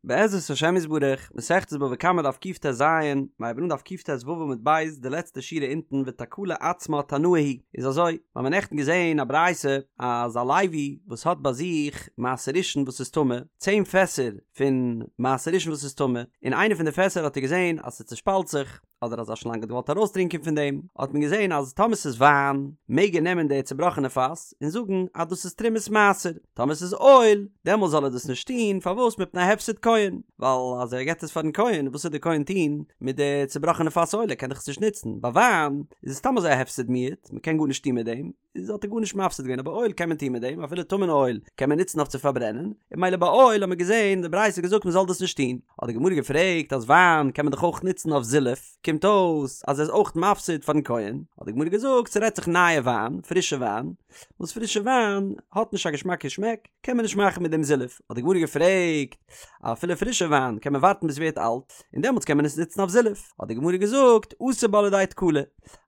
בעזרת השם יתברך, מסכת בבא קמא דף קט"ז, מיר הייבן אן דף קט"ו עמוד ב', די לעצטע שורה אונטן ותקלה עצמה תנאי היא, איז אזוי, מיר האבן נעכטן געזען א ברייתא אז א לוי וואס האט ביי זיך מעשר ראשון וואס איז טמא, צען פעסער פון מעשר ראשון וואס איז טמא, און איינע פון די פעסער האט ער געזען אז ס'צושפאלט זיך, אדער אז א שלאנג האט געוואלט ארויסטרינקען פון דעם, האט מען געזען אז טאמער ס'איז וויין, מעג ער נעמען די צובראכענע פאס און זאגן אז דאס איז תרומת מעשר, טאמער ס'איז אויל, דעמאלס זאל ער דאס נישט טון, פארוואס מפני הפסד כהן, ווייל אז ער געבט עס פארן כהן, וואס וועט די כהן טון מיט די צובראכענע פאס אויל, ער קען דאך עס נישט נוצן, ביי וויין איז עס סתם אזוי א הפסד מועט, מ'קען גארנישט טון מיט דעם. איז האט ער גארנישט מפסיד געווען אבער אויל קען מען טון מיט דעם אפילו טמא'נע אויל קען מען נוצן אויף צו פארברענען און ממילא ביי אויל האט מען געזען די ברייתא האט געזאגט מען זאל דאס נישט טון האט די גמרא געפרעגט אז וויין קען מען דאך אויך נוצן אויף זילוף קומט אויס אז ער איז אויך מפסיד פארן כהן האט די גמרא געזאגט ס'רעדט זיך נייע וויין פרישע וויין וואס פרישע וויין האט נישט א געשמאקע שמעק קען מען נישט מאכן מיט דעם זילוף האט די גמרא געפרעגט אפילו פרישע וויין קען מען ווארטן ביז ס'ווערט אלט און דעמאלטס קען מען עס נוצן אויף זילוף האט די גמרא געזאגט אתי בה לידי תקלה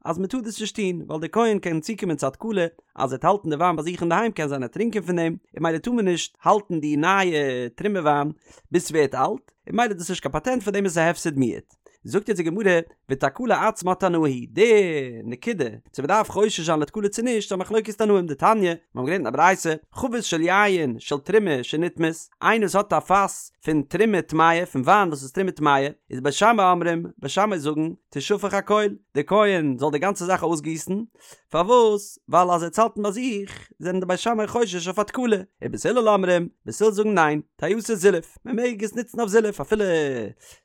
אז מען טאר דאס נישט טון, ווייל דער כהן קען צוקומען צו א תקלה, אז ער וועט האלטן די וויין ביי זיך אינדערהיים קען זיין ער וועט טרינקען פון דעם, און ממילא טאר מען נישט האלטן די נייע תרומה וויין ביז ס'ווערט אלט, און ממילא איז דאס נישט קיין פאטענט פאר דעם איז עס א הפסד מועט. זאגט יעצט די גמרא, ותקלה עצמה תנאי היא, די נקודה צו מען דארף חושש זיין לתקלה צו נישט איז א מחלוקת תנאים, דתניא, מיר האבן געלערנט אין א ברייתא, חבית של יין של תרומה שנטמאת, איינער וואס האט א פאס פון תרומה טמאה, פון וויין וואס איז תרומה טמאה, איז בית שמאי אומרים, בית שמאי זאגן, תשפך הכל, דער כהן זאל די גאנצע זאך אויסגיסן, פארוואס? ווייל אז ער וועט עס האלטן ביי זיך, זענען די בית שמאי חושש אויף א תקלה, ובית הלל אומרים, בית הלל זאגן ניין, תעשה זילוף, מען מעג עס נוצן אויף זילוף אפילו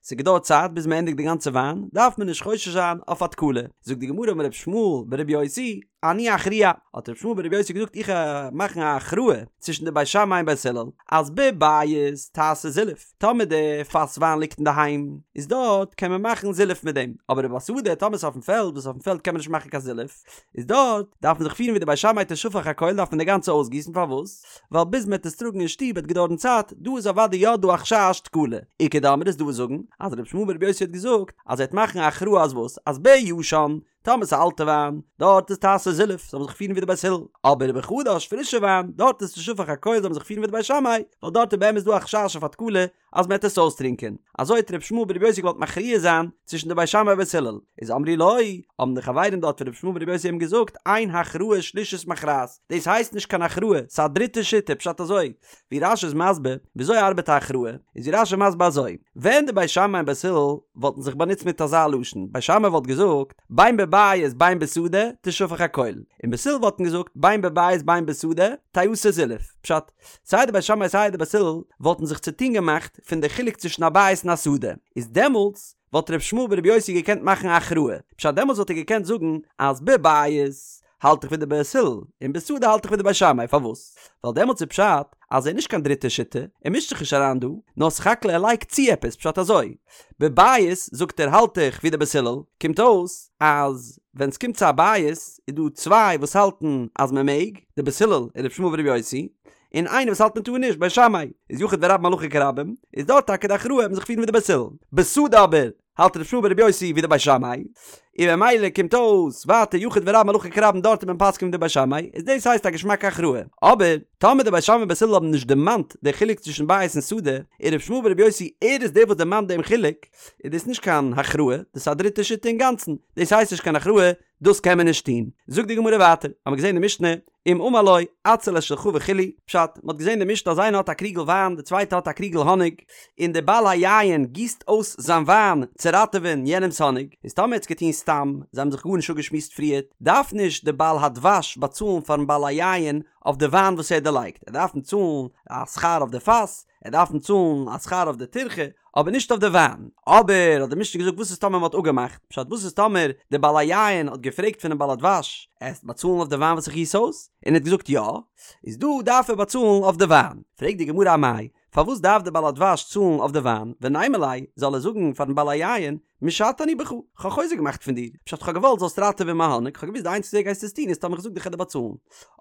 ס'געדויערט צייט ביז מען ענדיגט די גאנצע וויין, דארף מען נישט חושש זיין אויף א תקלה. זאגט די גמרא אמר ר' ישמעאל ברבי יוסי, אני אכריע, האט ר' ישמעאל ברבי יוסי געזאגט איך וועל מאכן א הכרעה צווישן די בית שמאי און בית הלל, אז בבית תעשה זילוף, טאמער די פאס וויין ליגט אינדערהיים, איז דארט קען מען מאכן זילוף מיט דעם, אבער ובשדה טאמער ס'איז אויפן פעלד, וואס אויפן פעלד קען מען נישט מאכן קיין זילוף, איז דארט דארף מען זיך פירן ווי די בית שמאי תשפך הכל דארף מען די גאנצע אויסגיסן, פארוואס? ווייל ביז מ'עט עס טראגן אין שטוב וועט געדויערן צייט, דא איז אוודאי יא דא א חשש תקלה. איכא דאמרי איז דא וואס זאגן אז ר' ישמעאל ברבי יוסי האט געזאגט אז ער וועט מאכן א הכרעה אז וואס? אז בישן טאמער ס'איז אלטע וויין, דארט איז תעשה זילוף, זאל מען זיך פירן ווי די בית הלל. אבער בחדש פרישע וויין, דארט איז תשפך הכל זאל מען זיך פירן ווי די בית שמאי, ווייל דארט איז באמת דא א חשש אויף א תקלה אז מ'עט עס אויסטרינקען. אזוי האט ר' ישמעאל ברבי יוסי געוואלט מכריע זיין צווישן די בית שמאי און בית הלל. איז אמרו לו, האבן די חברים דארט פון ר' ישמעאל ברבי יוסי אים געזאגט, אין הכרעה שלישית מכרעת, דאס הייסט נישט קיין הכרעה, ס'איז א דריטע שיטה, פשט אזוי, ווי רש"י איז מסביר וויאזוי ארבעט א הכרעה, איז ווי רש"י מסביר אזוי, ווען די בית שמאי און בית הלל וואלטן זיך באנוצט מיט אזא לשון, בית שמאי וואלט געזאגט, בין בבית בין בשדה תשפך הכל, און בית הלל וואלטן געזאגט, בין בבית בין בשדה תעשה זילוף, פשט, סיי די בית שמאי סיי די בית הלל וואלטן זיך צוטון געמאכט פון די חילוק צווישן א בית און א שדה, איז דעמאלטס וואלט ר' ישמעאל ברבי יוסי געקענט מאכן א הכרעה, פשט דעמאלטס וואלט ער געקענט זאגן אז בבית האלט איך ווי די בית הלל, און בשדה האלט איך ווי די בית שמאי, פארוואס? ווייל דעמאלטס איז פשט אז ער איז נישט קיין דריטע שיטה, ער מישט זיך נישט אריין דא, נאר סך הכל ער לייגט צו עפעס, פשט אזוי, בבית זאגט ער האלט איך ווי די בית הלל, קומט אויס אז ווען ס'קומט צו א בית איז דא צוויי וואס האלטן אז מ'מעג, די בית הלל און ר' ישמעאל ברבי יוסי, און איינער וואס האלט מען טאר נישט, בית שמאי, איז יחיד ורבים הלכה כרבים, איז דארט טאקע די הכרעה מען זיך פירן ווי די בית הלל. בשדה אבער, האלט ר' ישמעאל ברבי יוסי ווי די בית שמאי, און ממילא קומט אויס ווייטער יחיד ורבים הלכה כרבים דארט איז מען פסק'ן ווי די בית שמאי, איז דאס הייסט א געשמאקע הכרעה. אבער, טאמער די בית שמאי און בית הלל האבן נישט דערמאנט די חילוק צווישן בית און שדה, און ר' ישמעאל ברבי יוסי ער איז דער וואס דערמאנט דעם חילוק, איז דאס נישט קיין הכרעה, דאס איז א דריטע שיטה אינגאנצן, דאס הייסט נישט קיין הכרעה, דאס קען מען נישט טון. זאגט די גמרא ווייטער, האמיר געזען די משנה, אם אמר לו, אציל את שלך וכו', פשט, מען האט געזען די משנה אז איינער האט א קריגל וויין, די צווייטע האט א קריגל האניג, און דער בעל היין גיסט אויס זיין וויין צו ראטעווען יענעמ'ס האניג, איז טאמער ער האט עס געטון סתם, זיי האבן זיך גארנישט אפגעשמועסט פריערט, דארף נישט דער בעל הדבש באצאלן פארן בעל היין אויף די וויין וואס ער האט דערלייגט, ער דארף אים צאלן א שכר אויף די פאס, ער דארף אים צאלן א שכר אויף די טירחה, אבער נישט אויף די וויין. אבער האט די משנה געזאגט וואס איז טאמער מען האט אפגעמאכט? פשט וואס איז טאמער די בעל היין האט געפרעגט פונעם בעל הדבש עסט באצאלן אויף די וויין וואס איך גיס אויס? און ער האט געזאגט יא, איז דא דארף ער באצאלן אויף די וויין. פרעגט די גמרא אמאי, פארוואס דארף די בעל הדבש צאלן אויף די וויין? ונימא ליה, זאל ער זאגן פארן בעל היין, משטה אני בך, כ'האב חוזק געמאכט פון דיר, פשט כ'האב געוואלט זאלסט ראטעווען מיין האניג, כ'האב געוואוסט די איינציגסטע וועג גייסט עס טון איז טאמער כ'זאג דיר כ'על דיר באצאלן,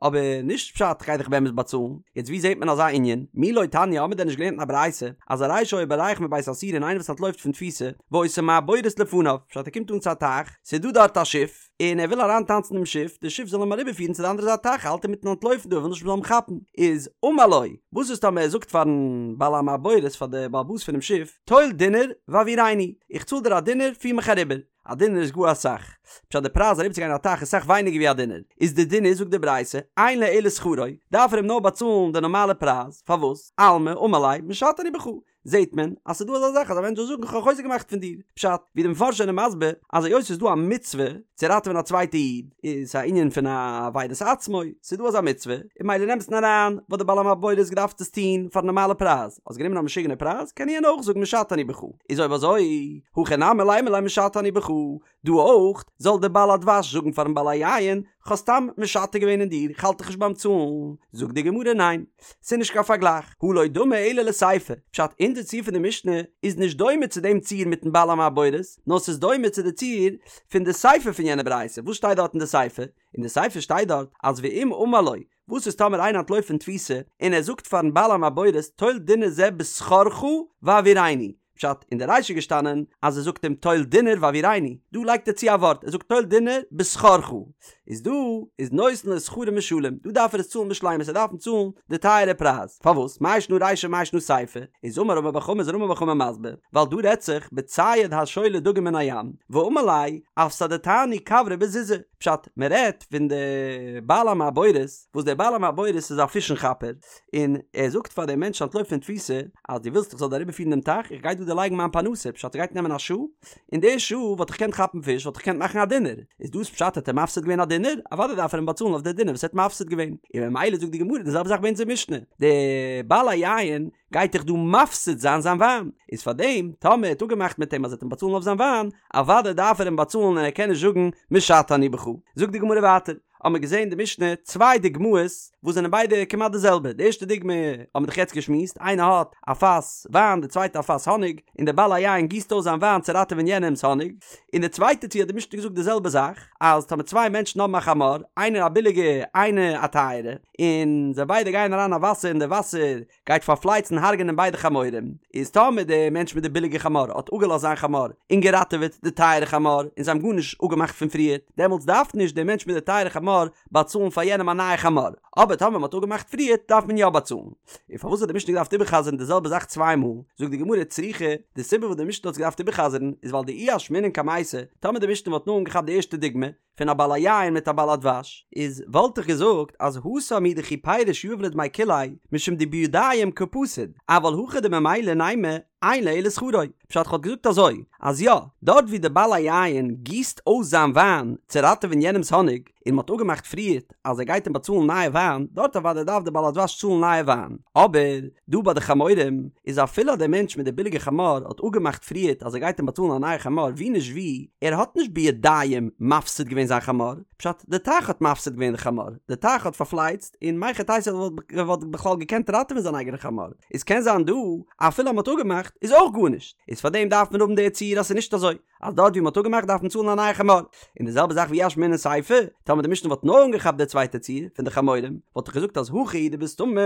אבער נישט פשט כ'גיי דיך באמת באצאלן, יעצט ווי זעט מען אזא ענין? מי לא תניא האמיר דען נישט געלערנט אין א ברייתא אז הרי שהיה בורח מבית האסורין איינער וואס אנטלויפט פון תפיסה והיתה מעבורת לפניו, פשט ער קומט אן צו א טייך, ס'איז דא דארט א שיף, און ער וויל אריין טאנצן אינעם שיף, די שיף זאל אים אריבער פירן צו די אנדערע זייט טייך, האלט אינמיטן אנטלויפן דא, ער וויל נישט מ'זאל אים כאפן, איז אמר לו, וואס איז טאמער ער זאגט פארן בעל המעבורת, פאר די בעל הבית פונעם שיף, טול דינר והעבירני, איך צאל דיר א דינר, פיר מיך אריבער, א דינר איז גאר אסאך, פשט די פרייז אריבער צו גיין א טייך איז סאך ווייניגער ווי א דינר, איז די דין איז זאגט די ברייתא, אין לו אלא שכרו, דארף ער אים נאר באצאלן די נארמאלע פרייז, פארוואס? אלמא אמר ליה, משטה אני בך, זעהט מען אז ס'איז דא אזא זאך אז א מענטש זאל זאגן כ'האב חוזק געמאכט פון דיר. פשט, ווי די מפרשים זענען מסביר אז היות ס'איז דא א מצוה צו ראטעווען א צווייטע איד, איז ס'א ענין פון אבידת עצמו, ס'איז דא אזא מצוה, און ממילא אין אמת'ן אריין וואלט די בעל המעבורת געדארפט עס טוהן פארן נארמאלע פרייז, האסט גענומען א משוגענע פרייז, קען יענער אויך זאגן משטה אני בך. איז אויב אזוי, הכא נמי לימא ליה משטה אני בך, דא אויך, זאל דער בעל הדבש זאגן פארן בעל היין, כ'האב סתם משטה געווען אין דיר, כ'האלט דיך נישט ביים צאלן. זאגט די גמרא ניין, ס'איז נישט קיין פארגלייך, הא לא דמי אלא לסיפא, פשט אונזער ציור פון די משנה איז נישט דומה צו דעם ציור מיטן בעל המעבורת, נאר ס'איז דומה צו די ציור פון די סיפא פון יענע ברייתא, וואס שטייט דארט אין די סיפא? אין די סיפא שטייט דארט אז ואם אמר לו, וואס איז טאמער איינער אנטלויפט פון תפיסה און ער זאגט פארן בעל המעבורת טול דינר זה בשכרך והעבירני, פשט, אין די רישא איז געשטאנען אז ער זאגט אים טול דינר והעבירני, דא לייגט ער צו א ווארט, ער זאגט טול דינר בשכרך, איז דא איז נותן לו שכרו משלם, דא דארף ער עס צאלן בשלימות, ער דארף אים צאלן די טייערע פרייז, פארוואס? מאי שנא רישא מאי שנא סיפא, איז אמר רמי בר חמא איז רמי בר חמא מסביר, ווייל דא רעדט זיך בצייד השולה דגים מן הים, ואמר ליה אפסדתני כוורי בזוזא, פשט, מען רעדט פון די בעל המעבורת, וואס דער בעל המעבורת איז א פישן כאפער, און ער זאגט פאר דעם מענטש אנטלויפט פון תפיסה, אז דו ווילסט איך זאל דיר אריבערפירן דעם טייך, איך גיי דא דערלייגן מיין פרנסה, פשט ס'גייט נעמען א שעה, אין די שעה וואלט איך געקענט כאפן פיש, וואלט איך געקענט מאכן א דינר, איז דאס פשט האט ער מפסיד געווען א דינר? אוודאי דארף ער אים באצאלן אויף די דינר וואס ער האט מפסיד געווען, און ממילא זאגט די גמרא די זעלבע זאך ביי אונזער משנה, די בעל היין גייט דאך דא מפסיד זיין זיין וויין, איז פאר דעם טאמער ער האט אפגעמאכט מיט אים אז ער וועט אים באצאלן אויף זיין וויין, אוודאי דארף ער אים באצאלן און ער קען נישט זאגן משטה אני בך. זאגט די גמרא ווייטער, האבן מיר געזען די משנה צוויי דוגמאות וואס זענען ביידע כמעט די זעלבע, די ערשטע דוגמא האבן מיר דאך יעצט געשמועסט, איינער האט א פאס וויין די צווייטע א פאס האניג, און דער בעל היין גיסט אויס זיין וויין צו ראטעווען יענעמ'ס האניג, און די צווייטע ציור האט די משנה געזאגט די זעלבע זאך, אז טאמער צוויי מענטשן האבן א חמור, איינער א ביליגע איינער א טייערע, און זיי ביידע גייען אריין אין וואסער און די וואסער גייט פארפלייצן הרג'נען ביידע חמורים, איז טאמער די מענטש מיט די ביליגע חמור האט אפגעלאזט זיין חמור און געראטעוועט די טייערע חמור און זיי האבן גארנישט אפגעמאכט פון פריער, דעמאלטס דארף נישט דער מענטש מיט די טייערע חמור באצאלן פאר יענעם א נייע חמור, אבער טאמער מען האט אפגעמאכט פריער דארף מען יא באצאלן. און פארוואס האט די משנה געדארפט איבער'חזר'ן די זעלבע זאך צוויי מאל? זאגט די גמרא צריכא, די סיבה וואס די משנה האט עס געדארפט איבער'חזר'ן איז ווייל דאי אשמעינן קמייתא, טאמער די משנה וואלט נאר אנגעכאפט די ערשטע דוגמא, פון א בעל היין מיט א בעל הדבש, איז וואלט איך געזאגט אז התם הוא דכי פירש יהיב ליה דמי כוליה, משום דבידים קא פסיד, אבל הכא דממילא נימא אין לו אלא שכרו, פשט כ'וואלט געזאגט אזוי, אז יא, דארט ווי די בעל היין גיסט אויס זיין וויין צו ראטעווען יענעמס האניג, און מ'האט אפגעמאכט פריערט אז ער גייט אים באצאלן נייע וויין, דארט אוודאי דארף די בעל הדבש צאלן נייע וויין, אבער דא ביי די חמורים איז אפילו אז דער מענטש מיט די ביליגע חמור האט אפגעמאכט פריערט אז ער גייט אים באצאלן א נייע חמור ווי נישט ווי, ער האט נישט בידיים מפסיד געווען זיין חמור, פשט די טייך האט מפסיד געווען די חמור, די טייך האט פארפלייצט און מהיכי תיתי ער וואלט בכלל געקענט ראטעווען זיין אייגענע חמור, איז קען זיין דא אפילו אז מ'האט אפגעמאכט איז אויך גארנישט, איז פארדעם דארף מען האבן די ציור אז ס'איז נישט אזוי. אז דארט ווי מ'האט אפגעמאכט דארף מען צאלן א נייע חמור. און די זעלבע זאך ואי אשמעינן סיפא, טאמער די משנה וואלט נאר אנגעכאפט די צווייטע ציור פון די חמורים, וואלט איך געזאגט אז הכא הוא דבסתמא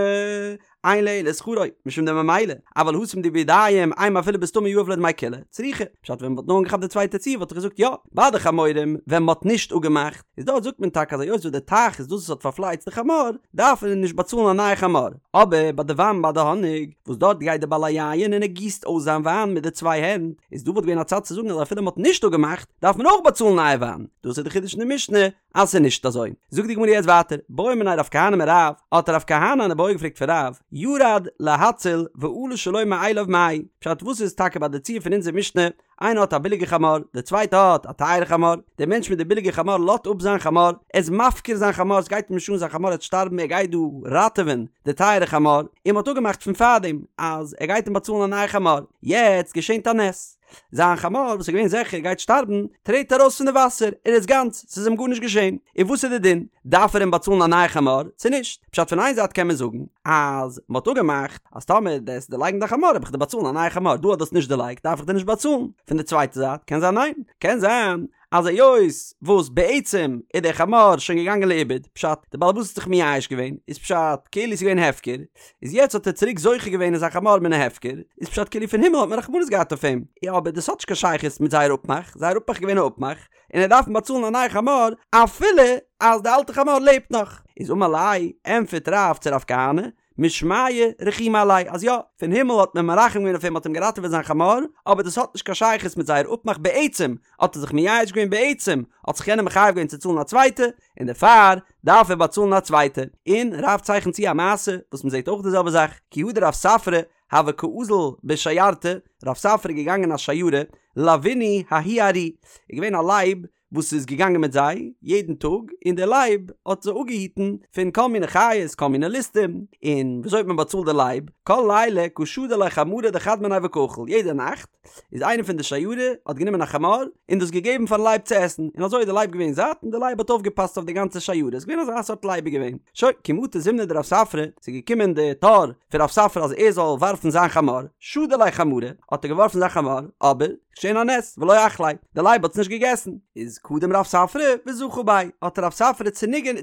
אין לו אלא שכרו, משום דממילא, אבל התם דבידים אימא אפילו בסתמא יהיב ליה דמי כוליה, צריכא. פשט ווען מ'וואלט נאר אנגעכאפט די צווייטע ציור וואלט איך געזאגט יא, ביי די חמורים ווען מ'האט נישט אפגעמאכט, איז דארט זאגט מען טאקע אז היות וואס די טייך איז דאס וואס האט פארפלייצט די חמור, דארף מען נישט באצאלן א נייע חמור. אבער ביי די וויין ביי די האניג, וואס דארט גייט די בעל היין און ער גיסט אויס זיין וויין מיט די צוויי הענט, איז דא וואלט געווען א צד צו זאגן אז אפילו מ'האט נישט אפגעמאכט, דארף מען אויך באצאלן נייע וויין. דאס איז די חידוש אין די משנה אז ס'איז נישט אזוי. זאגט די גמרא יעצט ווייטער, בעא מיניה רב כהנא מרב, האט רב כהנא אן איבעיא געפרעגט פון רב, ירד להציל ועלה שלו מאליו מהו, פשט וואס איז טאקע ביי די ציור פון אונזער משנה, איינער האט א ביליגע חמור, דער צווייטע האט א טייערע חמור, דער מענטש מיט די ביליגע חמור לאזט אפ זיין חמור, ער איז מפקיר זיין חמור, עס גייט אים נישט אן זיין חמור וועט שטארבן ער גייט דא ראטעווען די טייערע חמור, און מען האט אפגעמאכט פון פארדעם אז ער גייט אים באצאלן א נייע חמור, יעצט געשענט א נס. זיין חמור וואס איז געווען זיכער גייט שטארבן, טרעט ארויס פון די וואסער, ער איז גאנץ, ס'איז אים גארנישט געשען. און וואס איז די דין? דארף ער אים באצאלן א נייע חמור, צו נישט? פשט פון איין זייט קען מען זאגן, אז מ'האט אפגעמאכט, אז טאמער דו וועסט דערלייגן דיין חמור וועל איך דיר באצאלן א נייע חמור, דא האט דאס נישט דערלייגט דארף איך דיר נישט באצאלן. פון די צווייטע זייט קען זיין ניין, קען זיין אז היות וואס בעצם איז דער חמור שוין געגאנגען לאיבוד, פשט, דער בעל הבית האט זיך מייאש געווען, איז פשט, כאילו ס'איז געווען הפקר, איז יעצט האט ער צוריק זוכה געווען אין זיין חמור מן ההפקר, איז פשט כאילו פון הימל האט מען רחמנות געהאט אויף אים, יא אבער דאס האט נישט קיין שייכות מיט זייער אפמאך, זייער אפמאך איז געווען א אפמאך, און ער דארף אים באצאלן א נייע חמור אפילו אז די אלטע חמור לעבט נאך. איז אמר ליה, ענטפערט רב צו רב כהנא, משמיא רחימו עליה, אז יא, פון הימל האט מען מרחם געווען אויף אים, מ'האט אים געראטעוועט זיין חמור, אבער דאס האט נישט קיין שייכות מיט זייער אפמאך בעצם האט ער זיך מייאש געווען בעצם האט זיך יענער מחייב געווען צו צאלן א צווייטע, און דערפאר דארף ער באצאלן א צווייטע. און רב צייכנט צו א מעשה וואס מ'זעט אויך די זעלבע זאך, כי הא דרב ספרא הוה קאזיל בשיירתא, רב ספרא איז געגאנגען אין א שיירה, לוינהו ההוא ארי, איז געווען א לייב וואס איז געגאנגען מיט זיי יעדן טאג, און דער לייב האט זיי אפגעהיטן פון כל מיני חיות, כל מיני ליסטים, און וויאזוי האט מען באצאלט די לייב? כל ליליא קא שדי ליה חמרא דחד מינייהו וקא אכיל, יעדע נאכט איז איינער פון די שיירה האט גענומען א חמור און דאס געגעבן פארן לייב צו עסן, און אזוי איז די לייב געווען זאט און די לייב האט אויפגעפאסט אויף די גאנצע שיירה, איז געווען אזא סארט לייב איז געווען. שוין, כי מטא זימנא דרב ספרא, ס'איז געקומען די תור פון רב ספרא אז ער זאל ווארפן זיין חמור, שדי ליה חמרא, האט ער געווארפן זיין חמור, אבער, געשען א נס, ולא אכליה, די לייב האט עס נישט געגעסן. איז קדם רב ספרא וזכה ביה, האט רב ספרא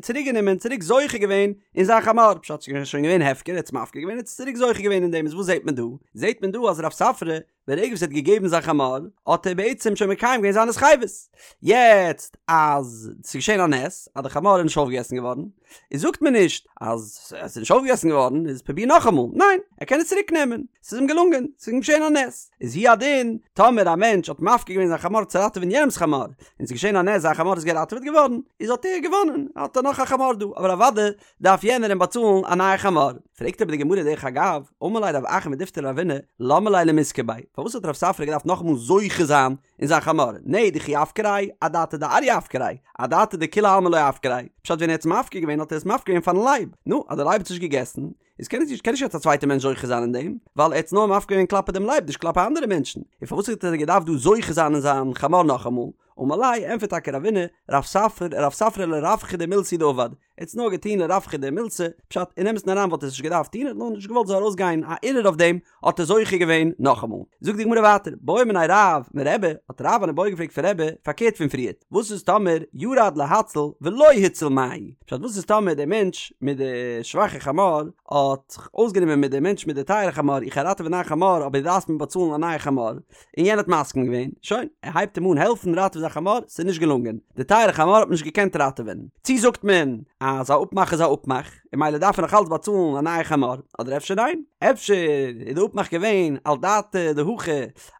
צוריק גענומען, צוריק זוכה געווען אין זיין חמור, פשט ס'איז שוין געווען הפקר, ער האט עס מפקיר געווען, ער האט עס צוריק זוכה געווען אין דעם, איז וואס זעט מען דא? זעט מען דא אז רב ספרא, ברגע וואס ער האט געגעבן זיין חמור, האט ער בעצם שוין מקיים געווען זיין התחייבות. יעצט אז ס'איז געשען א נס, אז די חמור איז נישט אויפגעגעסן געווארן, איז זאגט מען נישט אז עס איז נישט אויפגעגעסן געווארן איז פרוביר נאכאמאל, ניין ער קען עס צוריק נעמען, ס'איז אים געלונגען, ס'איז אים געשען א נס, איז הוא הדין טאמער א מענטש האט מפקיר געווען זיין חמור צו ראטעווען יענעמ'ס חמור, און ס'איז געשען א נס זיין חמור איז געראטעוועט געווארן, איז האט ער געוואנען, האט ער נאך א חמור דא, אבער אוודאי דארף יענער אים באצאלן א נייע חמור. פרעגט אבער די גמרא דרך אגב, אמר ליה רב אחא מדיפתי לרבינא, למה ליה למיזכי ביה, פארוואס האט רב ספרא געדארפט נאכאמאל זוכה זיין אין זיין חמור, נהי דכי אפקריה, אדעתא דאריא אפקריה, אדעתא דכולי עלמא לא אפקריה, פשט ווען ער האט עס מפקיר געווען האט ער עס מפקיר געווען פארן לייב, נו, אז דער לייב האט עס נישט געגעסן, איז קען נישט קען נישט יעצט א צווייטער מענטש זוכה זיין אין דעם, ווייל ער האט עס נאר מפקיר געווען כלפי דעם לייב נישט כלפי אנדערע מענטשן, און פארוואס האט ער געדארפט דא זוכה זיין אין זיין חמור נאכאמאל? אמר ליה, ענטפערט טאקע רבינא, רב ספרא, רב ספרא לרווחא דמילתא הוא דעבד, ער האט עס נאר געטון לרווחא דמילתא, פשט, אין אמת'ן אריין וואלט ער עס נישט געדארפט טון, ער האט נאר נישט געוואלט ס'זאל ארויסגיין א ערעור אויף דעם, האט ער זוכה געווען נאכאמאל. זאגט די גמרא ווייטער, בעא מיניה רב מרבי, האט רב אן איבעיא געפרעגט פון רבי, פארקערט פון פריערט, וואס איז טאמער ירד להציל ולא הציל מהו? פשט, וואס איז טאמער דער מענטש מיט די שוואכע חמור האט זיך אויסגענומען מיט דעם מענטש מיט די טייערע חמור, איך גיי ראטעווען דיין חמור אבער דו דארפסט מיר באצאלן א נייע חמור, און יענער האט מסכים געווען, שוין, ער הייבט אים אן העלפן ראטעווען זיין חמור, ס'איז נישט געלונגען, די טייערע חמור האט מען נישט געקענט ראטעווען. צי זאגט מען אז א אפמאך איז א אפמאך, און ממילא דארף ער נאך אלץ באצאלן א נייע חמור, אדער אפשר ניין? אפשר איז די אפמאך געווען על דעתא דהכי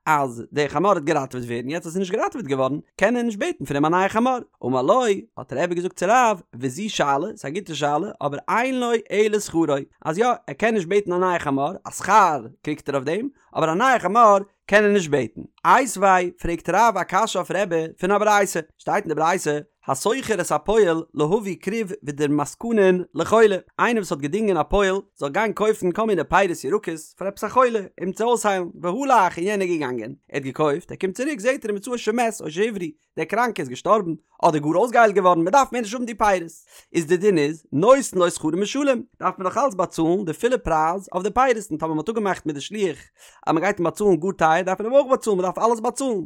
אז די חמור וועט געראטעוועט ווערן, יעצט אז ס'איז נישט געראטעוועט געווארן, קען ער נישט בעטן פון אים א נייע חמור. אמר לו, האט רבי געזאגט צו רב, וזו שאלה, ס'איז א גוטע שאלה, אבער אין לו אלא שכרו, אז יא, ער קען נישט בעטן א נייע חמור, א שכר קריגט ער אויף דעם, אבער א נייע חמור קען ער נישט בעטן. איתיביה, פרעגט רב א קשיא אויף רבי פון א ברייתא, שטייט אין די ברייתא, השוכר את הפועל להביא כרוב ודורמסקנין לחולה, איינער וואס האט געדינגען א פועל זאל גיין קויפן כל מיני פירות ירקות פאר עפעס א חולה אים צו אויסהיילן, והלך און יענער איז געגאנגען, ער האט געקויפט, ער קומט צוריק זעט ער ומצאו שמת או שהבריא, דער קראנקער איז געשטארבן, אדער גאר אויסגעהיילט געווארן, מען דארף מער נישט האבן די פירות. איז די דין איז, נותן לו שכרו משולם, דארף מען נאך אלץ באצאלן די פולע פרייז אויף די פירות, און טאמער מען האט אפגעמאכט מיט די שליח אז מען גייט אים באצאלן גאר טייער דארף מען אים אויך באצאלן, מען דארף אלעס באצאלן. און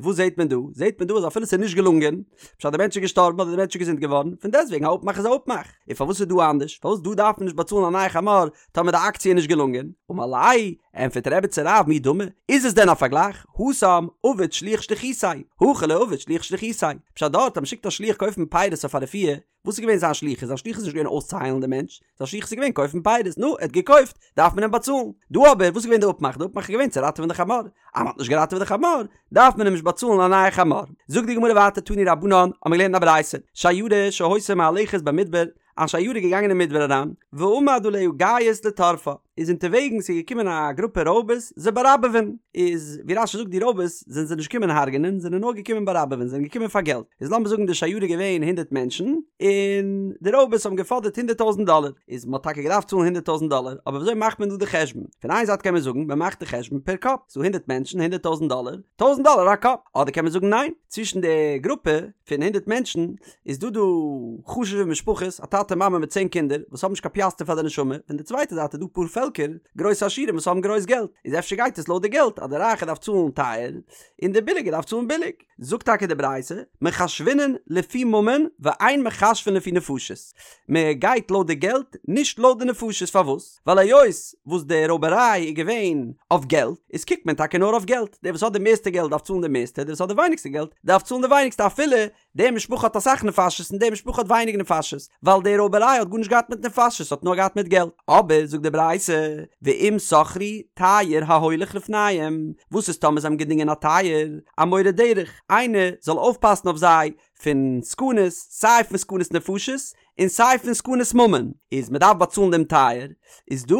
וואס זעט מען דא? זעט מען דא אז אפילו ס'איז נישט געלונגען, פשט דער מענטש איז געשטארבן אדער דער מענטש איז געזונט געווארן, פון דעסטוועגן א אפמאך איז א אפמאך. און פארוואס איז דא אנדערש? פארוואס דא דארף מען נישט באצאלן א נייע חמור טאמער די אקציע איז נישט געלונגען? אמר ליה, ענטפערט רבי צו רב מי דמי, איז עס דען א פארגלייך? התם עבד שליח שליחותיה, הכא לא עבד שליח שליחותיה. פשט דארט אז מ'שיקט א שליח קויפן פירות אויף א רפואה, וואס איז געווען זיין שליחות? זיין שליחות איז נישט געווען אויסצוהיילן דעם מענטש, זיין שליחות איז געווען קויפן פירות, נו, ער האט געקויפט, דארף מען אים באצאלן. דא אבער, וואס איז געווען די אפמאך? די אפמאך איז געווען צו ראטעווען די חמור. אז מ'האט נישט געראטעוועט די חמור, דארף מען אים נישט באצאלן א נייע חמור. זאגט די גמרא ווייטער תנו רבנן, האבן מיר געלערנט אין א ברייתא, שיירה שהיתה מהלכת במדבר, א שיירה איז געגאנגען אין מדבר אריין, ועמד עליה גייס לטרפה. איז אונטערוועגנס איז געקומען א גרופע רויבערס זיי באראבעווען, איז ווי רש"י זאגט די רויבערס זענען זיי נישט געקומען הרג'נען זענען נאר געקומען באראבעווען זענען געקומען פאר געלט, איז לאמיר זאגן די שיירה איז געווען הונדרעט מענטשן און די רויבערס האבן געפאדערט הונדרעט טויזנט דאלער, איז מ'האט טאקע געדארפט צאלן הונדרעט טויזנט דאלער, אבער וויאזוי מאכט מען דא די חשבון? פון איין זייט קען מען זאגן מ'מאכט די חשבון פער קאפ, ס'דא הונדרעט מענטשן הונדרעט טויזנט דאלער, טויזנט דאלער א קאפ, אדער קען מען זאגן ניין, צווישן די גרופע פון הונדרעט מענטשן איז דא דא חשוב'ע משפחות, א טאטע מאמע מיט צען קינדער, וואס האבן נישט קיין פיאסטער פאר די נשמה, פון די צווייטע זייט איז דא פארפעלקער, גרויסע עשירים וואס האבן גרויס געלט, איז אפשר גייט עס לויט די געלט, אז די רייכע דארף צאלן טייער, און די ביליגע דארף צאלן ביליג. זאגט טאקע די ברייתא, מחשבינן לפי ממון ואין מחשבין לפי נפשות, מען גייט לויט די געלט, נישט לויט די נפשות, פארוואס? ווייל היות וואס די רויבעריי איז געווען אויף געלט, איז קוקט מען טאקע נאר אויף געלט, דער וואס האט די מערסטע געלט דארף צאלן די מערסטע, דער וואס האט די ווייניגסטע געלט דארף צאלן די ווייניגסטע אפילו די משפחה האט אסאך נפשות און די משפחה האט ווייניג נפשות, ווייל די רויבעריי האט גארנישט געהאט מיט נפשות האט נאר געהאט מיט געלט. אבער זאגט די ברייתא, ואם שכרו תייר ההולך לפניהם, וואס איז טאמער זיי האבן געדינגען א תייר, א מורה דרך, איינער זאל אויפפאסן אויף זיי פון סכנות, סיי פון סכנות נפשות און סיי פון סכנות ממון, איז מען דארף באצאלן דעם תייר, איז דא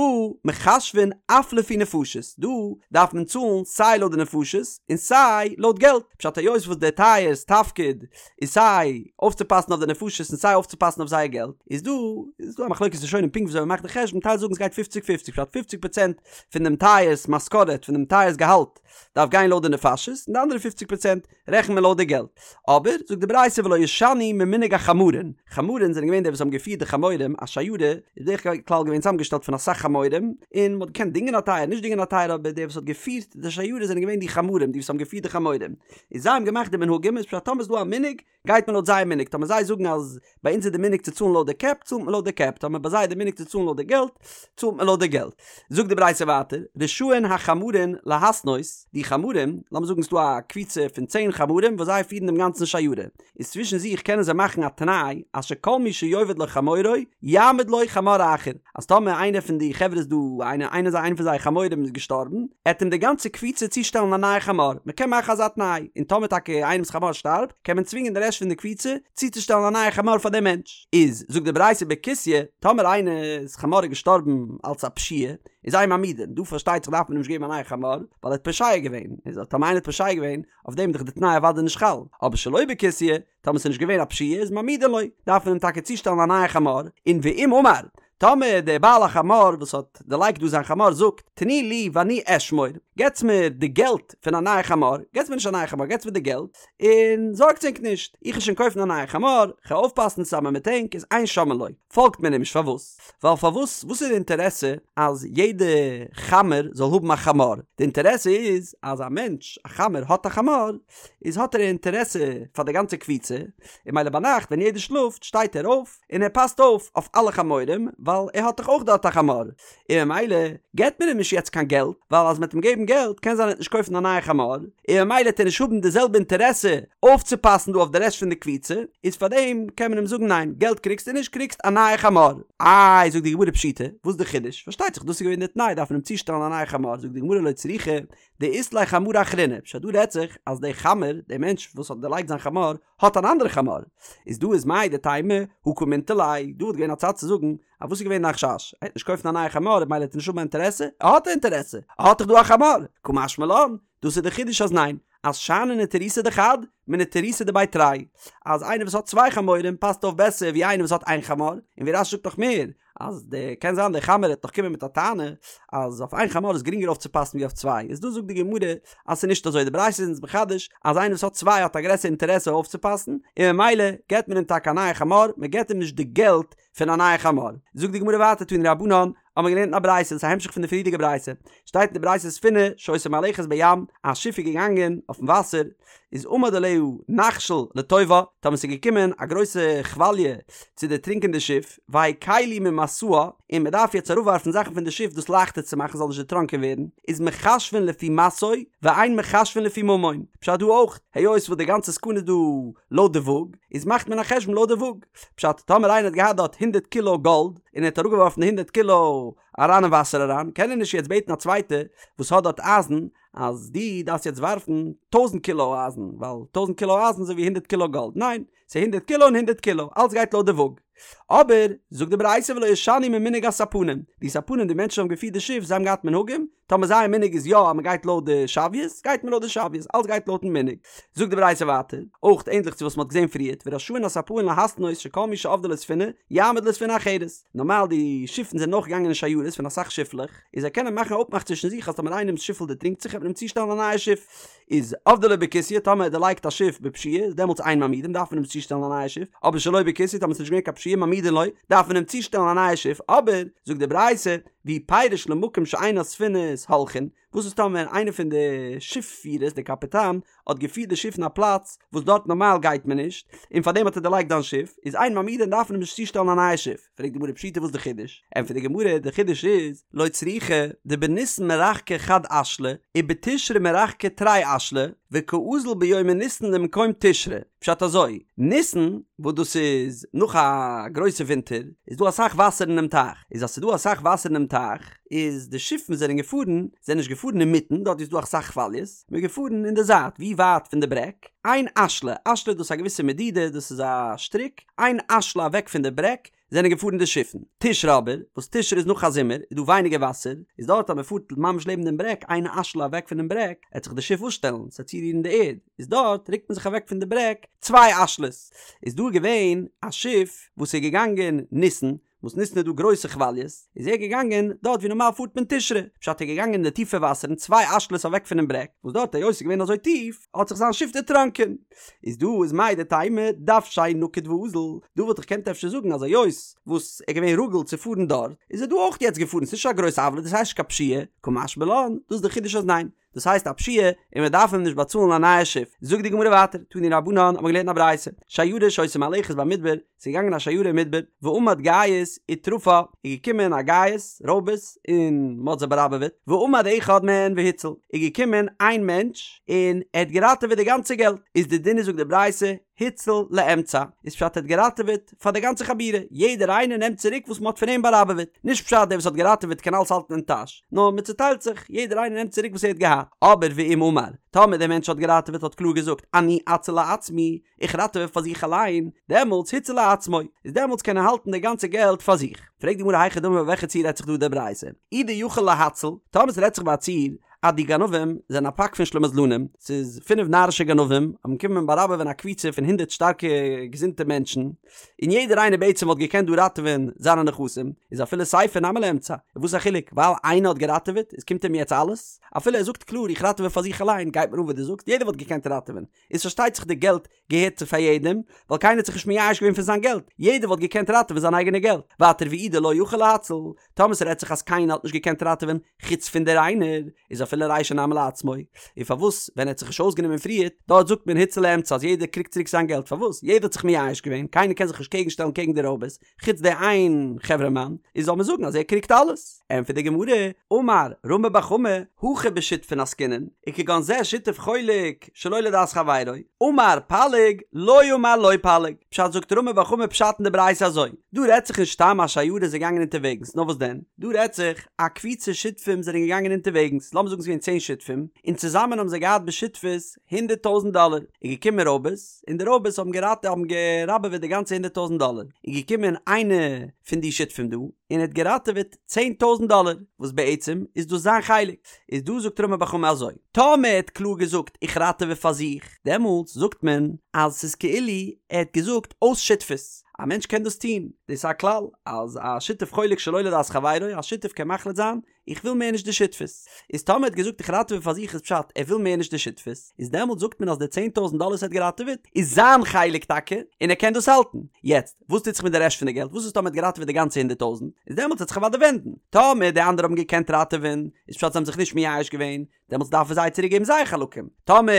מחשבין אף לפי נפשות, דא דארף מען צאלן סיי לויט די נפשות און סיי לויט געלט, פשט היות וואס דער תייר'ס תפקיד איז סיי אויפצופאסן אויף די נפשות און סיי אויפצופאסן אויף זייער געלט, איז דא איז דא א מחלוקת ראשונים פונקט וויאזוי מען מאכט די חשבון, טייל זאגן ס'גייט פופציג פופציג, פשט פופציג פראצענט פון דעם תייר'ס משכורת פון דעם תייר'ס געהאלט דארף גיין לויט די נפשות און די אנדערע פופציג פראצענט רעכנט מען לויט די געלט. אבער, זאגט די ברייתא ולא ישנו ממנהג החמרין, חמרין זענען געווען די וואס האבן געפירט די חמורים, א שיירה איז בדרך כלל געווען צוזאמגעשטעלט פון אסאך חמורים, און מען האט געקענט דינגען א טייער, נישט דינגען א טייער, אבער די וואס האט געפירט די שיירה זענען געווען די חמרים, די וואס האבן געפירט די חמורים, און זיי האבן געמאכט די מנהגים, איז פשט טאמער איז דא א מנהג, גייט מען לויט זייער מנהג, טאמער זיי זאגן אז ביי אונז איז די מנהג צו צאלן לויט די קעפ, צאלט מען לויט די קעפ, טאמער ביי זיי איז די מנהג צו צאלן לויט די געלט, צאלט מען לויט די געלט. זאגט די ברייתא ווייטער, רשאין החמרין להתנות, די חמרים, לאמיר זאגן ס'דא א קבוצה פון צען חמרים וואס זיי פירן דעם גאנצן שיירה, איז צווישן זיך קענען זיי מאכן א תנאי אז שכל מי שיאבד לו חמורו יעמיד לו חמור אחר, אז טאמער איינער פון די חברה איז דא, איינער איינער איינער פון זייער חמורים איז געשטארבן, עט אים די גאנצע קבוצה צושטעלן א נייע חמור, מ'קען מאכן אזא תנאי, און טאמער טאקע איינעמ'ס חמור שטארבט, קען מען צווינגען די רעשט פון די קבוצה צוצושטעלן א נייע חמור פאר דעם מענטש. איז, זאגט די ברייתא בכוסיא, טאמער איינער'ס חמור איז געשטארבן אלס א פשיעה, איז אין מעמידין, דא פארשטייט זיך דארף מען אים נישט געבן א נייע חמור, ווייל ער האט פושע געווען, איז טאמער איינער האט פושע געווען, אויף דעם איז דאך די תנאי אוודאי נישט חל, אבער שלא בכוסיא, טאמער ס'איז נישט געווען א פשיעה איז מעמידין לו, דארף מען אים טאקע צושטעלן א נייע חמור, און ואם אמר, טאמער דער בעל החמור וואס האט דערלייגט דא זיין חמור זאגט, תנו לי ואני אשמור, געטס מיר די געלט פון א נייע חמור, געטס מיר נישט א נייע חמור, געטס מיר די געלט, און זארגטס ענק נישט, איך וועל שוין קויפן א נייע חמור, כ'וועל אויפפאסן צוזאמען מיט ענק, איז אין שומעין לו, פאלגט מען אים נישט, פארוואס? ווייל פארוואס, וואס איז די אינטערעסע אז יעדע חמר זאל האבן א חמור? די אינטערעסע איז אז א מענטש, א חמר האט א חמור, איז האט ער א אינטערעסע פאר די גאנצע קבוצה, און מילא ביינאכט ווען יעדער שלאפט שטייט ער אויף און ער פאסט אויף אויף אלע חמורים ווייל ער האט דאך אויך דארט א חמור, און ממילא געט מען אים נישט יעצט קיין געלט, ווייל אז מען וועט אים געבן געלט קען זיין ער וועט נישט קויפן א נייע חמור, און ממילא וועט ער נישט האבן די זעלבע אינטערעסע אויפצופאסן דא אויף די רעשט פון די קבוצה, איז פארדעם קען מען אים זאגן ניין געלט קריגסטו נישט קריגסט א נייע חמור. איי זאגט די גמרא פשיטא, וואס איז די חידוש? פארשטייט זיך דאס איז געווען די תנאי דארף מען אים צושטעלן א נייע חמור, זאגט די גמרא לא צריכא דאית ליה חמרא אחרינא, פשט דא רעדט זיך אז דער חמר, דער מענטש וואס האט דערלייגט זיין חמור, האט אן אנדערע חמור, איז דא איז מהו דתימא הא קא מינטר ליה, דא וואלט געווען א צד צו זאגן אז וואס איז געווען דיין חשש, ער וועט נישט קויפן א נייע חמור ממילא וועט ער נישט האבן א אינטערעסע, ער האט א אינטערעסע, ער האט דאך דא א חמור, קא משמע לן, דאס איז די חידוש אז ניין, אז שאני נטירותא דחד, מנטירותא דבי תרי, אז איינער וואס האט צוויי חמורים פאסט אויף בעסער ווי איינער וואס האט איין חמור, און ווי רש"י זאגט נאך מער, אז די קען זיין די חמר וועט נאך קומען מיט א טענה אז אויף איין חמור איז גרינגער אויפצופאסן ווי אויף צוויי, איז דא זאגט די גמרא אז ס'איז נישט אזוי, די ברייתא איז אונז מחדש אז איינער וואס האט צוויי האט א גרעסערע אינטערעסע אויפצופאסן, און ממילא געט מען אים טאקע א נייע חמור, מען געט אים נישט די געלט פון א נייע חמור. זאגט די גמרא ווייטער תנו רבנן, האבן מיר געלערנט אין א ברייתא, דאס איז א המשך פון די פריערדיגע ברייתא, שטייט אין די ברייתא ספינה שהיתה מהלכת בים, א שיף איז געגאנגען אויפן וואסער, איז עמד עליה נחשול לטובעה, טאמער ס'איז געקומען א גרויסע כוואליע צו דערטרינקען די שיף, והקילו ממשאה, און מען דארף יעצט אראפווארפן זאכן פון די שיף דאס לייכטער צו מאכן ס'זאל נישט דערטראנקען ווערן, איז מחשבין לפי משאוי, ואין מחשבין לפי ממון, פשט דא אויך, היות וואס די גאנצע סכנה איז דא לויט די וואג, איז מאכט מען א חשבון לויט די וואג, פשט, טאמער איינער האט געהאט דארט הונדערט קילא גאלד, און ער האט אראפגעווארפן די הונדערט קילא אריין אין וואסער אריין, קען ער נישט יעצט בעטן א צווייטער וואס האט דארט אייזן, אז דו דארפסט יעצט ווארפן טויזנט קילא אייזן, ווייל טויזנט קילא אייזן איז אזוי ווי הונדערט קילא גאלד, ניין, ס'איז הונדערט קילא און הונדערט קילא, אלץ גייט לויט די וואג. אבער, זאגט די ברייתא ולא ישנו ממנהג הספנים, די ספנים די מענטשן האבן געפירט די שיף זיי האבן געהאט מנהגים, טאמער זייער מנהג איז יא אז מען גייט לויט די שוויות, גייט מען לויט די שוויות, אלץ גייט לויטן מנהג. זאגט די ברייתא ווייטער, אויך ענדליך צו וואס מען האט געזען פריערט, ורשאין הספנים להתנות שכל מי שאבדה לו ספינה, יעמיד לו ספינה אחרת. נארמאל די שיפן זענען אויך געגאנגען אין שיירות פון אסאך שיפלעך, איז זיי קענען מאכן א אפמאך צווישן זיך אז טאמער איינעמס שיפל דערטרינקט זיך וועט מען אים צושטעלן א נייע שיף. איז אבדה לו בכוסיא טאמער ער דערלייגט א שיף בפשיעה איז דעמאלטס אין מעמידין דארף מען אים צושטעלן א נייע שיף, אבער שלא בכוסיא טאמער ס'איז נישט געווען קיין פשיעה מעמידין לו דארף מען אים צושטעלן א נייע שיף, אבער זאגט די ברייתא ואי פירש למקום שאין הספינות הולכין, וואס איז טאמער איינער פון די שיף פירערס די קאפיטאן האט געפירט די שיף אין א פלאץ וואס דארט נארמאל גייט מען נישט און פארדעם האט ער דערלייגט זיין שיף איז אין מעמידין דארף מען אים נישט צושטעלן א נייע שיף, פרעגט די גמרא פשיטא וואס די חידוש? ענטפערט די גמרא די חידוש איז לא צריכא דבניסן מרחקי חד אשלא ובתשרי מרחקי תרי אשלי וקאזיל ביומי ניסן למקום תשרי, פשט אזוי, ניסן וואס דאס איז נאך א גרויסע ווינטער איז דא אסאך וואסער אינעם טייך, איז אז ס'איז דא אסאך וואסער אינעם טייך איז די שיפן זענען געפארן זענען נישט געפארן אינמיטן דארט ווי ס'איז דא אסאך כוואליעס, מ'איז געפארן אין די זייט ווי ווייט פון די ברעג, איין אשלא, אשלא דאס איז א געוויסע מדידה דאס איז א שטריק, איין אשלא אוועק פון די ברעג זענען געפארן די שיפן. תשרי אבער, וואס תשרי איז נאך א זומער, איז דא ווייניגער וואסער, איז דארט אז מען פארט ממש לעבן דעם ברעג, איין אשלא אוועק פונעם ברעג, עט זיך די שיף אפשטעלן, ס'עט צורירן די ערד, איז דארט רוקט מען זיך אוועק פון די ברעג צוויי אשלות. איז דא געווען א שיף וואס איז געגאנגען ניסן, וואס ניסן איז דא גרויסע כוואליעס, איז ער געגאנגען דארט ווי נארמאל פארט מען תשרי, פשט ער איז געגאנגען אין די טיפע וואסערן צוויי אשלות אוועק פונעם ברעג, וואס דארט היות ס'איז געווען אזוי טיף, האט זיך זיין שיף דערטראנקען. איז דא איז מהו דתימא דוושיה נקיט ואזיל, דא וואלט איך געקענט אפשר זאגן אז היות וואס ער איז געווען רגיל צו פארן דארט, איז ער דא אויך יעצט געפארן, ס'איז נישט א גרויסע עוולה, דאס הייסט נישט קיין פשיעה, קא משמע לן, דאס איז די חידוש אז ניין, דאס הייסט א פשיעה און מען דארף אים נישט באצאלן א נייע שיף. זאגט די גמרא ווייטער, תנו רבנן האט מען געלערנט אין א ברייתא, שיירה שהיתה מהלכת במדבר, ס'איז געגאנגען א שיירה אין מדבר, ועמד גייס וטרפה, איז געקומען א גייס, רויבערס, און מ'האט זיי באראבעוועט, ועמד אחד מהן והציל, איז געקומען איין מענטש און ער האט געראטעוועט די גאנצע געלט, איז די דין איז זאגט די ברייתא, הציל לאמצע, איז פשט ער האט געראטעוועט פאר די גאנצע חבורה, יעדער איינער נעמט צוריק וואס מ'האט פון אים באראבעוועט, נישט פשט דער וואס האט געראטעוועט קען אלעס האלטן אין טאש, נאר מ'צוטיילט זיך, יעדער איינער נעמט צוריק וואס ער האט געהאט, אבער ואם אמר, טאמער דער מענטש האט געראטעוועט האט קלאר געזאגט אני אציל לעצמי, איך ראטעווע פאר זיך אליין, דעמאלטס הציל לעצמו, איז דעמאלטס קען ער האלטן די גאנצע געלט פאר זיך. פרעגט די גמרא היכי דמי ביי וועלכע ציור רעדט זיך דא די ברייתא? אי דיכול להציל, טאמער ס'רעדט זיך ביי א ציור אז די גנבים זענען א פאק פון שלימזלנים, ס'איז פינף נארישע גנבים האבן קומען באראבעווען א קבוצה פון הונדערט שטארקע געזונטע מענטשן, און יעדער איינער בעצם וואלט געקענט דא ראטעווען זיינע נכסים, איז אפילו סיפא נמי לאמצע, און וואס איז א חילוק, ווייל איינער האט געראטעוועט, איז קומט אים יעצט אלעס? אפילו ער זאגט קלאר איך ראטעווע פאר זיך אליין, גייט מיר אן וואס דו זאגסט, יעדער וואלט געקענט ראטעווען, איז פארשטייט זיך די געלט געהערט צו פאר יעדעם, ווייל קיינער האט זיך נישט מייאש געווען פון זיין געלט, יעדער וואלט געקענט ראטעווען זיין אייגענע געלט, ווייטער ואי דלא יכול להציל, טאמער ס'רעדט זיך אז קיינער האט נישט געקענט ראטעווען חוץ פון דער איינער, איז אפילו רישא נמי לעצמו, און פארוואס ווען ער האט זיך נישט אויסגענומען פריערט, דארט זאגט מען הציל לאמצע אז יעדער קריגט צוריק זיין געלט, פארוואס? יעדער האט זיך מייאש געווען, קיינער קען זיך נישט קעגן שטעלן קעגן די רויבערס, חוץ די איין חברה מאן, איז זאל מען זאגן אז ער קריגט אלעס? ענטפערט די גמרא, אמר רמי בר חמא, הכא בשותפין עסקינן, וכגון זה שותף חולק שלא לדעת חברו, אמר פליג, לא אמר לא פליג, פשט זאגט רמי בר חמא פשט אין די ברייתא אזוי, דא רעדט זיך נישט סתם א שיירה איז געגאנגען אונטערוועגנס, נאר וואס דען, דא רעדט זיך א קבוצה שותפים זענען געגאנגען אונטערוועגנס, לאמיר זאגן ס'איז געווען צען שותפים, און צוזאמען האבן זיי געהאט בשותפות הונדערט טויזנט דאלער, איז געקומען רויבערס, און די רויבערס האבן געראטע האבן געראבעוועט די גאנצע הונדערט טויזנט דאלער, איז געקומען איינער פון די שותפים דא, און ער האט געראטעוועט צען טויזנט דאלער, וואס בעצם איז דאס זיין חלק, איז דא זאגט רמי בר חמא אזוי, טאמער ער האט קלאר געזאגט איך ראטעווע פאר זיך, דעמאלטס זאגט מען אז ס'איז כאילו ער האט געזאגט אויס שותפות, א מענטש קען דאס טון, דאס איז א כלל אז א שותף חולק שלא לדעת חברו, א שותף קען מחליט זיין איך וויל מער נישט די שותפות. איז טאמער ער האט געזאגט איך ראטעווע פאר זיך איז פשט ער וויל מער נישט די שותפות, איז דעמאלט זאגט מען אז די צען טויזנט דאלער וואס ער האט געראטעוועט איז זיין חלק טאקע און ער קען דאס האלטן. יעצט וואס טוט זיך מיט די רעשט פון די געלט? וואס איז טאמער ער האט געראטעוועט די גאנצע הונדערט טויזנט? איז דעמאלט וועט זיך אוודאי ווענדן. טאמער די אנדערע האבן געקענט ראטעווען איז פשט זיי האבן זיך נישט מייאש געווען, דעמאלטס דארף ער זיי צוריק געבן זייער חלקים. טאמער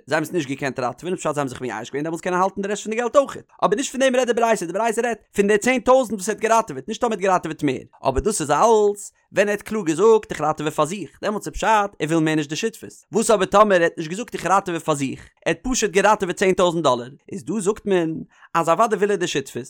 זיי האבן עס נישט געקענט ראטעווען איז פשט זיי האבן זיך מייאש געווען דעמאלטס קען ער האלטן די רעשט פון די געלט אויכעט. אבער נישט פון דעם רעדט די ברייתא, די ברייתא רעדט פון די צען טויזנט וואס ער האט געראטעוועט, נישט טאמער ער האט געראטעוועט מער. אבער דאס איז אלס ווען ער האט קלאר געזאגט איך ראטעווע פאר זיך, דעמאלטס איז פשט ער וויל מער נישט די שותפות. וואס אבער טאמער ער האט נישט געזאגט איך ראטעווע פאר זיך, ער האט פשוט געראטעוועט צען טויזנט דאלער, איז דא זאגט מען אז אוודאי וויל ער די שותפות,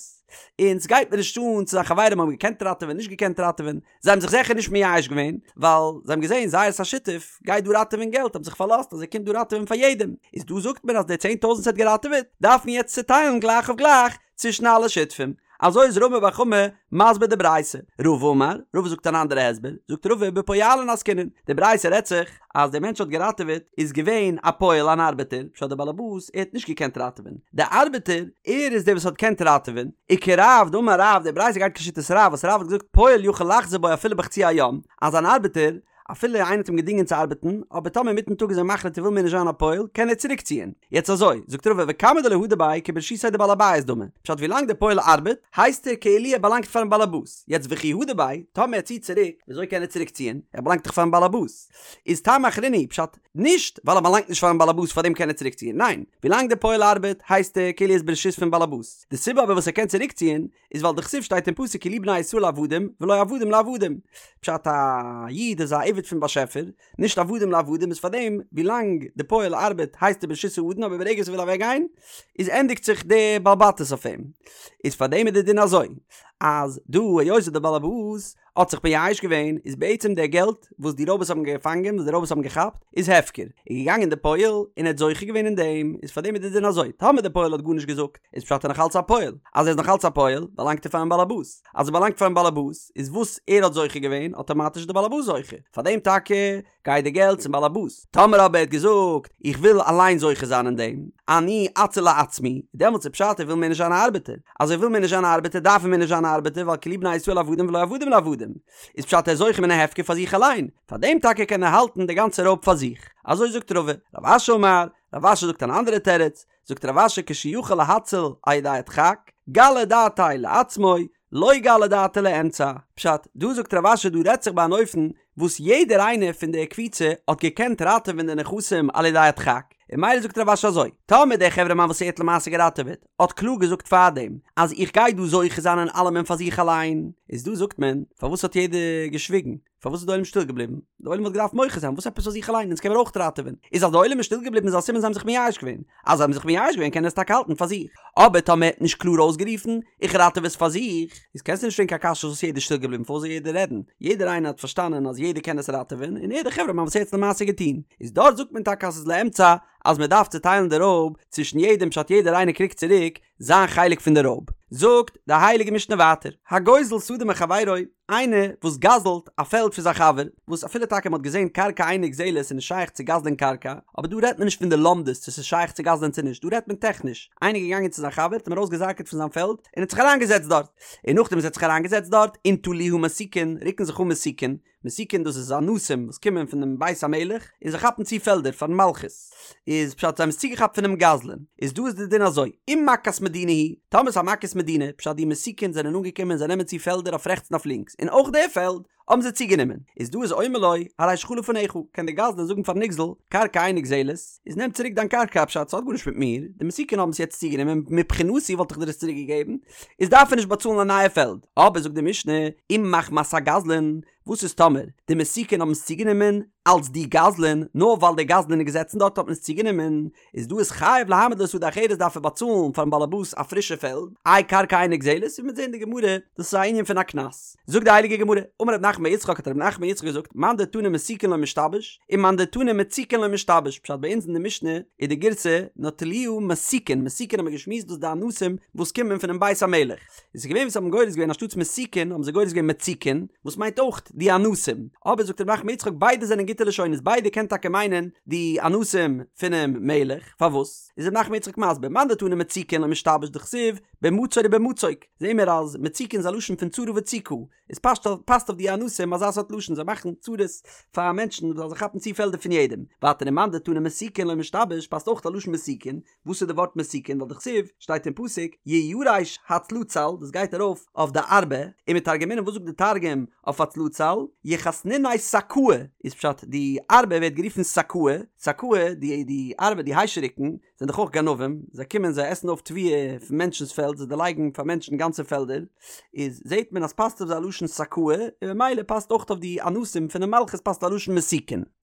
און סגייט מיר נישט אן צו זיין חברים האבן געקענט ראטעווען נישט געקענט ראטעווען, זיי האבן זיך זיכער נישט מייאש געווען, ווייל זיי האבן געזען זייערס א שותף גייט דא ראטעווען געלט, האבן זיך פארלאזט אז ער קומט דא ראטעווען פאר יעדעם, איז דא זאגט מען אז די צען טויזנט וואס ער האט געראטעוועט דארף מען יעצט צוטיילן גלייך אויף גלייך צווישן אלע שותפים. אזוי איז רמי בר חמא מסביר די ברייתא. רבא אמר, רבא זאגט אן אנדערע הסבר, זאגט רבא בפועלין עסקינן, די ברייתא רעדט זיך אז דער מענטש האט געראטעוועט איז געווען א פועל אן ארבעטער, פשט דער באלעבאס ער האט נישט געקענט ראטעווען, דער ארבעטער ער איז דער וואס האט געקענט ראטעווען, וכרב דאמר רב, די ברייתא גייט כשיטת רב וואס רב האט געזאגט פועל יכול לחזור בו אפילו בחצי היום, אז אן ארבעטער אפילו איינער האט אים געדינגען צו ארבעטן, אבער טאמער אינמיטן טאג איז ער מחליט ער וויל מער נישט זיין א פועל, קען ער צוריק ציען. יעצט אזוי, זאגט רבא וכמה דלא הדר ביה כברשותיה דבעל הבית דמי, פשט ווילאנג דער פועל ארבעט, הייסט ער כאילו ער באלאנגט פארן באלעבאס, יעצט וכי הדר ביה, טאמער ער ציט צוריק, וויאזוי קען ער צוריק ציען, ער באלאנגט דאך פארן באלעבאס. איז טעמא אחרינא הוא, פשט, נישט ווייל ער באלאנגט נישט פארן באלעבאס פארדעם קען ער צוריק ציען, ניין, ווילאנג דער פועל ארבעט, הייסט ער כאילו ער איז ברשות פון באלעבאס. די סיבה אבער וואס ער קען צוריק ציען, איז ווייל דכתיב שטייט אין פסוק כי לי בני ישראל עבדים ולא עבדים לעבדים, פשט א איד איז א עבד פון באשעפער, נישט עבדים לעבדים איז פארדעם ווילאנג די פועל ארבעט הייסט ער ברשות האדון אבער ברגע וואס ער וויל אוועק גיין איז ענדיגט זיך די בעל בתות אויף אים, איז פארדעם איז די דין אזוי אז דא היות די באלעבאס האט זיך מייאש געווען, איז בעצם דער געלט וואס די רויבערס האבן געפאנגען, וואס די רויבערס האבן געכאפט, איז הפקר. איז געגאנגען דער פועל און ער האט זוכה געווען אין דעם, איז פאר דעם איז די דין אזוי, טאמער דער פועל האט גארנישט געזאגט, איז פשט ער נאך אלץ א פועל, אז ער איז נאך אלץ א פועל, באלאנגט ער פארן באלעבאס, אז ער באלאנגט פארן באלעבאס, איז וואס ער האט זוכה געווען, אטאמאטיש איז דער באלעבאס זוכה, פאר דעם טאקע גייט די געלט צום באלעבאס. טאמער אבער ער האט געזאגט, איך וויל אליין זוכה זיין אין דעם, אני אציל לעצמי, דעמאלטס איז פשט ער וויל מער נישט זיין א ארבעטער. אז ער וויל מער נישט זיין א ארבעטער דארף ער מער נישט זיין א ארבעטער ווייל כי לי בני ישראל עבדים ולא עבדים לעבדים. איז פשט ער איז זוכה מן ההפקר פאר זיך אליין. פאר דעם טאקע קען ער האלטן די גאנצע רויב פאר זיך. אזוי זאגט רבא. רב אשי אמר, רב אשי זאגט אן אנדערע תירוץ, זאגט רב אשי כשיכול להציל על ידי הדחק, גלי דעתיה לעצמו, לא גלי דעתיה לאמצע. פשט, דא זאגט רב אשי דא רעדט זיך ביי אן אופן וואס יעדער איינער פון די קבוצה האט געקענט ראטעווען די נכסים על ידי הדחק, און ממילא זאגט רב אשי אזוי, טאמער דער חברה מאן וואס ער האט למעשה געראטעוועט האט קלאר געזאגט פארדעם אז איך גיי דא זוכה זיין אין אלעמען פאר זיך אליין, איז דא זאגט מען, פארוואס האט יעדער געשוויגן? פארוואס איז די עולם שטיל געבליבן? די עולם וואלט געדארפט מוחה זיין, וואס עפעס פאר זיך אליין? אונז קען מיר אויך ראטעווען. איז אז די עולם איז שטיל געבליבן איז א סימן זיי האבן זיך מייאש געווען. אז זיי האבן זיך מייאש געווען קען ער עס טאקע האלטן פאר זיך. אבער טאמער ער האט נישט קלאר אויסגערופן, איך ראטעווע עס פאר זיך, איז קענסטו נישט פרעגן קיין קשיא וואס יעדער איז שטיל געבליבן פארוואס זאל יעדער רעדן? יעדער איינער האט פארשטאנען אז יעדער קען עס ראטעווען, און ער דער חברה מאן וואס ער האט עס למעשה געטון. איז דארט זאגט מען טאקע אז ס'איז לאמצע אז מען דארף צוטיילן די רויב צווישן יעדעם פשט יעדער איינער קריגט צוריק זיין חלק פון די רויב. זאגט די הייליגע משנה ווייטער, הגוזל שדה מחבירו, איינער וואס גזל'ט א פעלד פון זיין חבר, וואס אפילו טאקע מען האט געזען קרקע אינה נגזלת איז נישט שייך צו גזל'ען קרקע, אבער דא רעדט מען נישט פון די לומדות צו ס'איז שייך צו גזל'ען צו נישט, דא רעדט מען טעכניש, איינער איז געגאנגען צו זיין חבר, האט אים ארויסגעזאקעט פון זיין פעלד, און האט זיך אריינגעזעצט דארט, און נאכדעם וואס ער האט זיך אריינגעזעצט דארט, ונטלוה מסיקין, רוקן זיך אן מסיקין, מסיקין דאס איז אנסים וואס קומען פונעם בית המלך און זיי כאפן צו פעלדער פארן מלכות איז פשט זיי האבן עס צוגעכאפט פונעם גזלן איז דא איז די דין אזוי אם מכת מדינה היא טאמער ס'איז א מכת מדינה פשט די מסיקין זענען אנגעקומען און זיי נעמען צו פעלדער אויף רעכטס און אויף לינקס און אויך די פעלד האבן זיי צוגענומען איז דא איז אומר לו הרי שלך לפניך קען די גזלן זאגן פארן נגזל קרקע אינה נגזלת איז נעם צוריק דיין קרקע פשט ס'האט גארנישט מיט מיר די מסיקין האבן עס יעצט צוגענומען מבחינתי וואלט איך דיר עס צוריק געגעבן איז דארף ער נישט באצאלן א נייע פעלד. אבער זאגט די משנה, אם מחמת הגזלן, וואס איז טאמער די מסיקין האבן עס צוגענומען אלץ די גזלן, נאר ווייל דער גזלן איז געזעצן דארט האט מען עס צוגענומען, איז דא איז חייב להעמיד לו שדה אחרת דארף ער באצאלן פארן באלעבאס א פרישע פעלד, איי קרקע אינה נגזלת, ווי מ'וועט זען אין די גמרא, דאס איז א ענין פון א קנס. זאגט די הייליגע גמרא, אמר רב נחמן בר יצחק האט רב נחמן בר יצחק געזאגט, מאן דתני מסיקין לא משתבש, און מאן דתני מציקין לא משתבש, פשט ביי אונז אין די משנה איז די גירסא נטלוה מסיקין, מסיקין האט מען געשמועסט דאס די אנסים וואס קומען פונעם בית המלך, איז עס געווען וואס האבן גורס געווען אנשטאטס מסיקין האבן זיי גורס געווען מציקין, וואס מיינט אויך די אנסים, אבער זאגט רב נחמן בר יצחק ביידע זענען גוטע לשונות ביידע קען טאקע מיינען די אנסים פונעם מלך, פארוואס איז רב נחמן בר יצחק מסביר מאן דתני מציקין לא משתבש דכתיב במצור ובמצוק, זעהן מיר אז מציקין איז א לשון פון צרה וצוקה, איז פאסט פאסט אויף די אנסים אזא סארט לשון זיי מאכן צרות פאר מענטשן ווייל זיי כאפן צו פעלדער פון יעדעם, ווייטער ומאן דתני מסיקין לא משתבש פאסט אויך א לשון מסיקין, וואס איז די ווארט מסיקין ווייל דכתיב שטייט אין פסוק יירש הצלצל דאס גייט ארויף אויף די ארבה, ומתרגמינן וואס זאגט די תרגום אויף הצלצל יכסניניה סקאי איז פשט די ארבה ווערט גערופן סקאי, סקאי די די ארבה די היישעריקן זענען דאך אויך גנבים, זיי קומען זיי עסן אויף תבואה פון מענטשנ'ס פעלד, זיי דערלייגן פאר מענטשן גאנצע פעלדער, איז זעט מען אז פאסט אויף זיי א לשון סקאי, און ממילא פאסט אויך אויף די אנסים פונעם מלכות פאסט א לשון מסיקין.